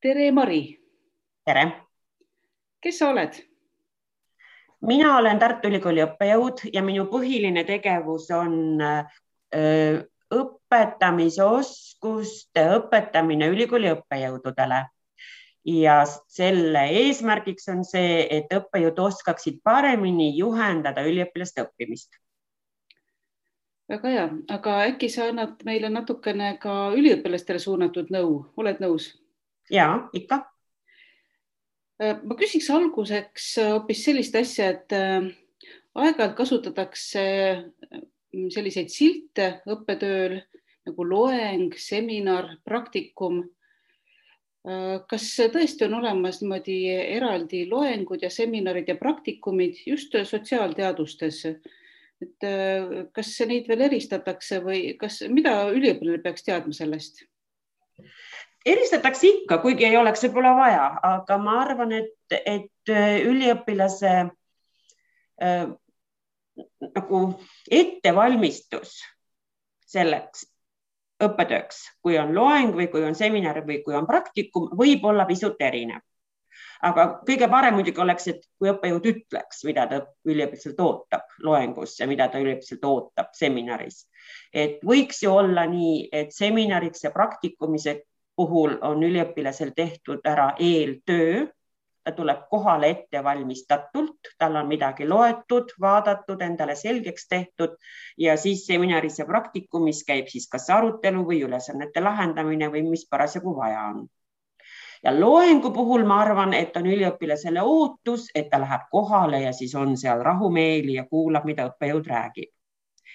Tere, Mari. Tere! Kes sa oled? Mina olen Tartu Ülikooli õppejõud ja minu põhiline tegevus on õpetamise oskuste õpetamine ülikooli õppejõududele. Ja selle eesmärgiks on see, et õppejõud oskaksid paremini juhendada üliõpilaste õppimist. Väga hea, aga äkki sa annad meile natukene ka üliõpilastele suunatud nõu, oled nõus? Jaa, ikka. Ma küsiks alguseks hoopis sellist asja, et aeg-ajalt kasutatakse selliseid silte õppetööl nagu loeng, seminar, praktikum. Kas tõesti on olemas niimoodi eraldi loengud ja seminarid ja praktikumid just sotsiaalteadustes? Et kas neid veel eristatakse või mida üliõpilane peaks teadma sellest? Eristatakse ikka, kuigi ei oleks võib-olla vaja, aga ma arvan, et üliõpilase nagu ettevalmistus selleks õppetööks, kui on loeng või kui on seminar või kui on praktikum, võib olla pisut erinev. Aga kõige parem muidugi oleks, et kui õppejõud ütleks, mida ta üliõpilaselt ootab loengus ja mida ta üliõpilaselt ootab seminaris. Et võiks ju olla nii, et seminariks ja praktikumise puhul on üliõpilasel tehtud ära eeltöö, ta tuleb kohale ettevalmistatult, tal on midagi loetud, vaadatud, endale selgeks tehtud ja siis seminaris ja praktikumis käib siis kas arutelu või ülesannete lahendamine või mis parasjagu vaja on. Ja loengu puhul ma arvan, et on üliõpilasele ootus, et ta läheb kohale ja siis on seal rahumeeli ja kuulab, mida õppejõud räägib.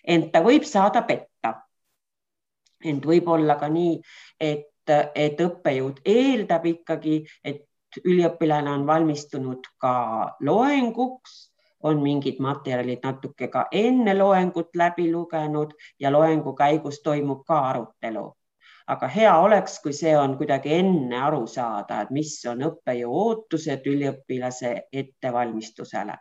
Ent ta võib saada petta. Ent võib olla ka nii, et õppejõud eeldab ikkagi, et üliõpilane on valmistunud ka loenguks, on mingid materjalid natuke ka enne loengut läbi lugenud ja loengu käigus toimub ka arutelu. Aga hea oleks, kui see on kuidagi enne aru saada, et mis on õppejõu ootused üliõpilase ettevalmistusele.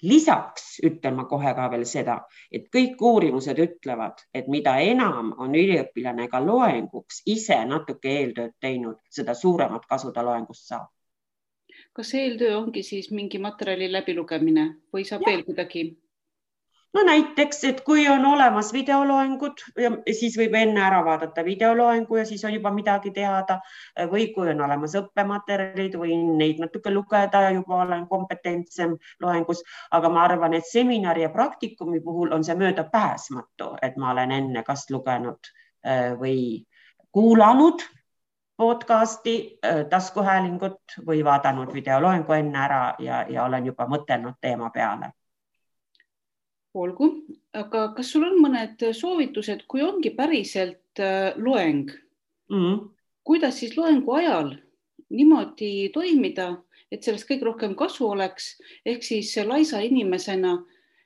Lisaks ütlen ma kohe ka veel seda, et kõik uurimused ütlevad, et mida enam on üliõpilane ka loenguks ise natuke eeltööd teinud, seda suuremat kasu ta loengust saab. Kas eeltöö ongi siis mingi materjali läbilugemine või saab veel kuidagi? No näiteks, et kui on olemas videoloengud, siis võib enne ära vaadata videoloengu ja siis on juba midagi teada või kui on olemas õppematerjalid või neid natuke lugeda ja juba olen kompetentsem loengus, aga ma arvan, et seminari ja praktikumi puhul on see möödapääsmatu, et ma olen enne kas lugenud või kuulanud podcasti, taskuhäälingut või vaadanud videoloengu enne ära ja olen juba mõtelnud teema peale. Olgu, aga kas sul on mõned soovitused, kui ongi päriselt loeng? Kuidas siis loengu ajal niimoodi toimida, et sellest kõige rohkem kasu oleks, ehk siis laisa inimesena,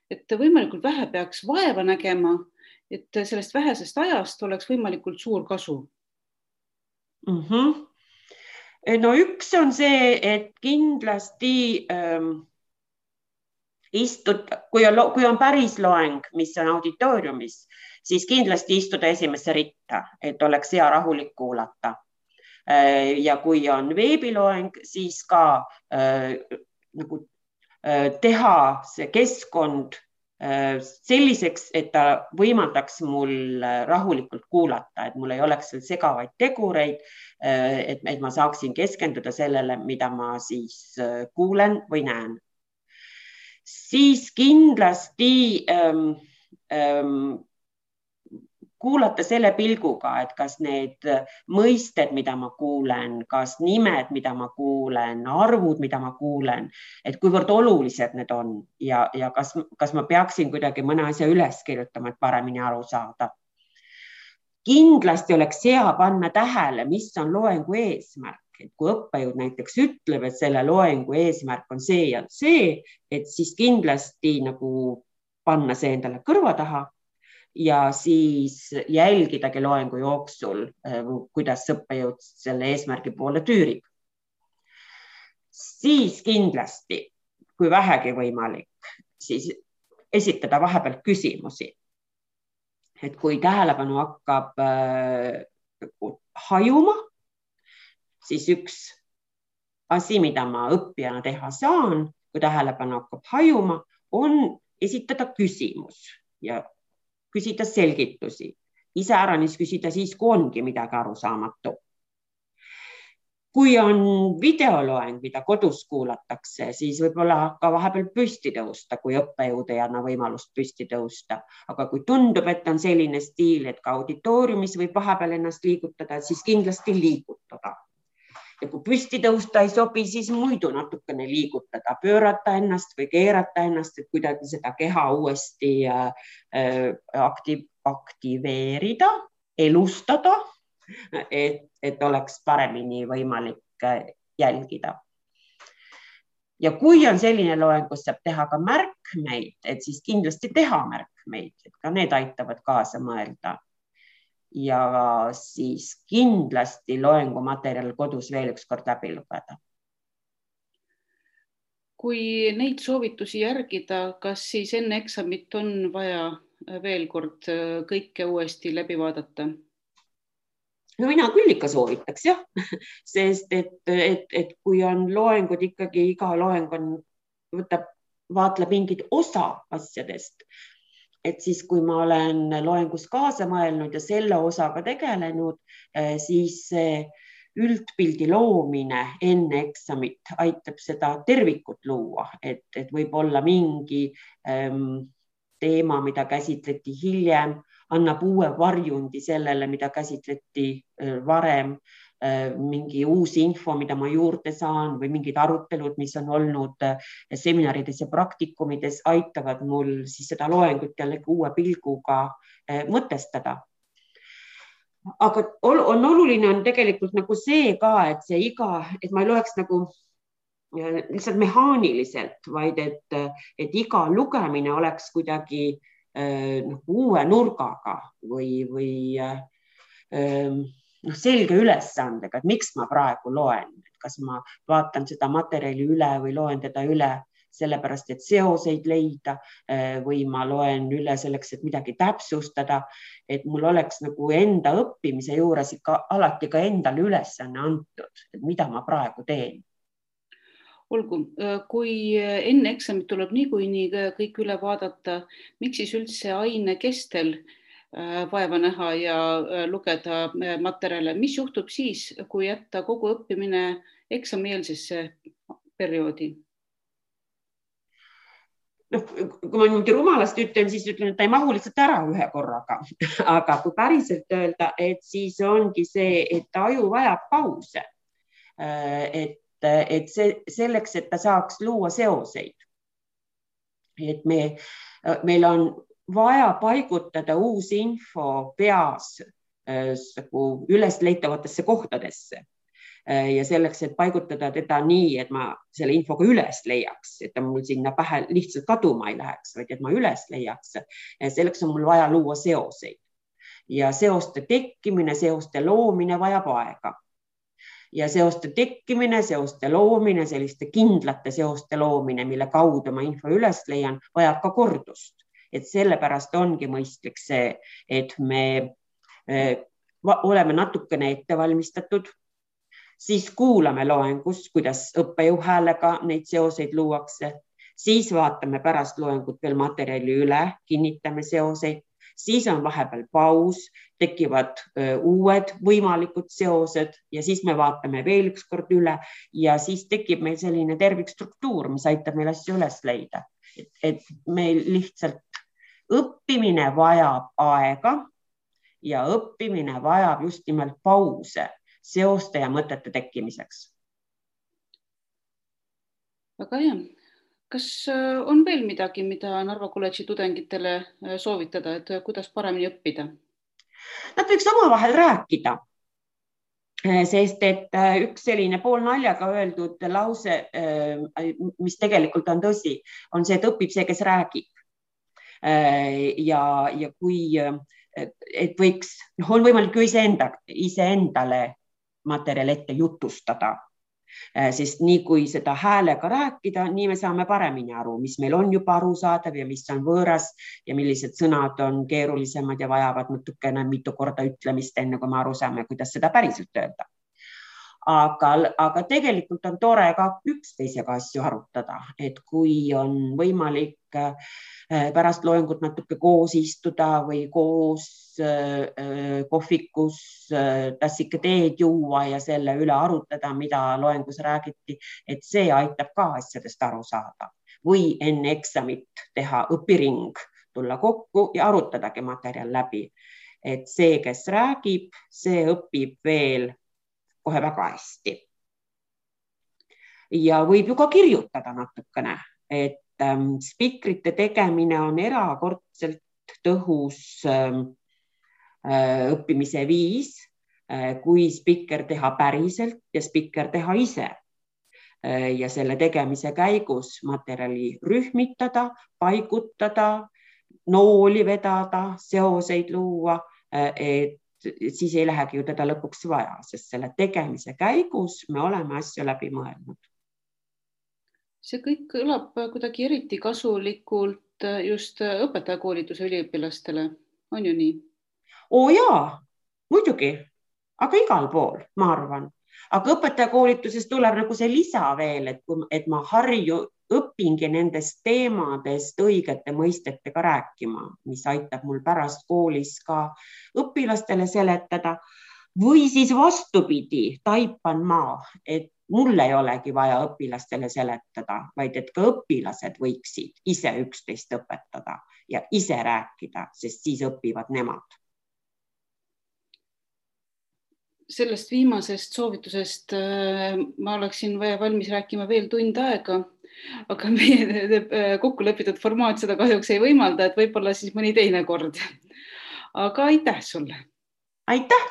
et võimalikult vähe peaks vaeva nägema, et sellest vähesest ajast oleks võimalikult suur kasu? No üks on see, et kindlasti kui on päris loeng, mis on auditooriumis, siis kindlasti istuda esimesse ritta, et oleks hea rahulik kuulata. Ja kui on veebiloeng, siis ka teha see keskkond selliseks, et ta võimaldaks mul rahulikult kuulata, et mul ei oleks veel segavaid tegureid, et ma saaksin keskenduda sellele, mida ma siis kuulen või näen. Siis kindlasti kuulata selle pilguga, et kas need mõisted, mida ma kuulen, kas nimed, mida ma kuulen, arvud, mida ma kuulen, et kuivõrd olulised need on ja kas ma peaksin kuidagi mõne asja üles kirjutama, et paremini aru saada. Kindlasti oleks hea panna tähele, mis on loengu eesmärk. Et kui õppejõud näiteks ütleb, et selle loengu eesmärk on see ja see, et siis kindlasti nagu panna see endale kõrva taha ja siis jälgidagi loengu jooksul, kuidas õppejõud selle eesmärgi poole tüürib. Siis kindlasti, kui vähegi võimalik, siis esitada vahepeal küsimusi. Et kui tähelepanu hakkab hajuma, siis üks asi, mida ma õppijana teha saan, kui tähelepanu hakkab hajuma, on esitada küsimus ja küsida selgitusi. Iseäranis küsida siis, kui ongi midagi arusaamatu. Kui on videoloeng, mida kodus kuulatakse, siis võib-olla ka vahepeal püsti tõusta, kui õppejõud ei anna võimalust püsti tõusta. Aga kui tundub, et on selline stiil, et ka auditooriumis võib vahepeal ennast liigutada, siis kindlasti liigutada. Ja kui püsti tõusta ei sobi, siis muidu natukene liigutada, pöörata ennast või keerata ennast, et kuidagi seda keha uuesti aktiveerida, elustada, et oleks paremini võimalik jälgida. Ja kui on selline loeng, kus saab teha ka märkmeid, et siis kindlasti teha märkmeid, et ka need aitavad kaasa mõelda. Ja siis kindlasti loengumaterjal kodus veel üks kord läbi lugeda. Kui neid soovitusi järgida, kas siis enne eksamit on vaja veel kord kõike uuesti läbi vaadata? No mina küll ikka soovitaks, jah, sest et kui on loengud ikkagi, iga loeng vaatleb mingit osa asjadest, et siis, kui ma olen loengus kaasa mõelnud ja selle osaga tegelenud, siis üldpildi loomine enne eksamit aitab seda tervikut luua, et võib olla mingi teema, mida käsitleti hiljem, annab uue varjundi sellele, mida käsitleti varem, mingi uus info, mida ma juurde saan või mingid arutelud, mis on olnud seminarides ja praktikumides, aitavad mul siis seda loengut jällegi uue pilguga mõtestada. Aga on oluline on tegelikult nagu see ka, et ma ei loeks nagu lihtsalt mehaaniliselt, vaid et iga lugemine oleks kuidagi uue nurgaga või selge ülesandega, et miks ma praegu loen, kas ma vaatan seda materjali üle või loen teda üle sellepärast, et seoseid leida või ma loen üle selleks, et midagi täpsustada, et mul oleks nagu enda õppimise juures ikka alati ka endale ülesanne antud, et mida ma praegu teen. Olgu, kui enne eksamit tuleb niikuinii kõik üle vaadata, miks siis üldse aine kestel vaeva näha ja lugeda materjale? Mis juhtub siis, kui jätta kogu õppimine eksamieelsesse perioodi? Kui ma niimoodi rumalast ütlen, siis ütlen, et ta ei mahu lihtsalt ära ühe korraga. Aga kui päriselt öelda, et siis ongi see, et aju vajab pause. Et selleks, et ta saaks luua seoseid. Et meil on vaja paigutada uus info peas ülesleitavatesse kohtadesse. Ja selleks, et paigutada teda nii, et ma selle infoga üles leiaks, et ta mul sinna pähe lihtsalt kaduma ei läheks, vaid et ma üles leiaks. Selleks on mul vaja luua seoseid. Ja seoste tekkimine, seoste loomine vajab aega. Ja seoste tekkimine, seoste loomine, selliste kindlate seoste loomine, mille kaudu ma info üles leian, vajab ka kordust. Et sellepärast ongi mõistlik see, et me oleme natukene ettevalmistatud, siis kuulame loengus, kuidas õppejõu häälega neid seoseid luuakse, siis vaatame pärast loengut veel materjali üle, kinnitame seoseid, siis on vahepeal paus, tekivad uued võimalikud seosed ja siis me vaatame veel üks kord üle ja siis tekib meil selline tervikstruktuur, mis aitab meil asju üles leida. Et meil lihtsalt õppimine vajab aega ja õppimine vajab just nimelt pause seoste ja mõtete tekkimiseks. Väga hea. Kas on veel midagi, mida Narva kolledži tudengitele soovitada, et kuidas paremini õppida? Nad võiks omavahel rääkida, sest et üks selline poolnaljaga öeldud lause, mis tegelikult on tõsi, on see, et õpib see, kes räägib. Ja kui et võiks, on võimalik ju iseendale materjal ette jutustada, sest nii kui seda häälega rääkida, nii me saame paremini aru, mis meil on juba arusaadav ja mis on võõras ja millised sõnad on keerulisemad ja vajavad natukene mitu korda ütlemist, enne kui me aru saame, kuidas seda päriselt öelda. aga tegelikult on tore ka üksteisega asju arutada, et kui on võimalik pärast loengut natuke koos istuda või koos kohvikus tassike teed juua ja selle üle arutada, mida loengus räägiti, et see aitab ka asjadest aru saada. Või enne eksamit teha õpiring, tulla kokku ja arutadagi materjal läbi. Et see, kes räägib, see õpib veel kohe väga hästi. Ja võib ju ka kirjutada natukene, et spikrite tegemine on erakordselt tõhus õppimise viis, kui spikker teha päriselt ja spikker teha ise. Ja selle tegemise käigus materjali rühmitada, paigutada, nooli vedada, seoseid luua, et siis ei lähegi ju teda lõpuks vaja, sest selle tegemise käigus me oleme asju läbi mõelnud. See kõik kõlab kuidagi eriti kasulikult just õpetajakoolituse üliõpilastele, on ju nii? Jaa, muidugi, aga igal pool, ma arvan. Aga õpetajakoolituses tuleb nagu see lisa veel, et ma õpingi nendest teemadest õigete mõistetega rääkima, mis aitab mul pärast koolis ka õpilastele seletada. Või siis vastupidi, taipan ma, et mul ei olegi vaja õpilastele seletada, vaid et ka õpilased võiksid ise üksteist õpetada ja ise rääkida, sest siis õpivad nemad. Sellest viimasest soovitusest ma oleksin valmis rääkima veel tund aega, aga meie kokkulepitud formaat seda kahjuks ei võimalda, et võib-olla siis mõni teine kord. Aga aitäh sulle! Aitäh!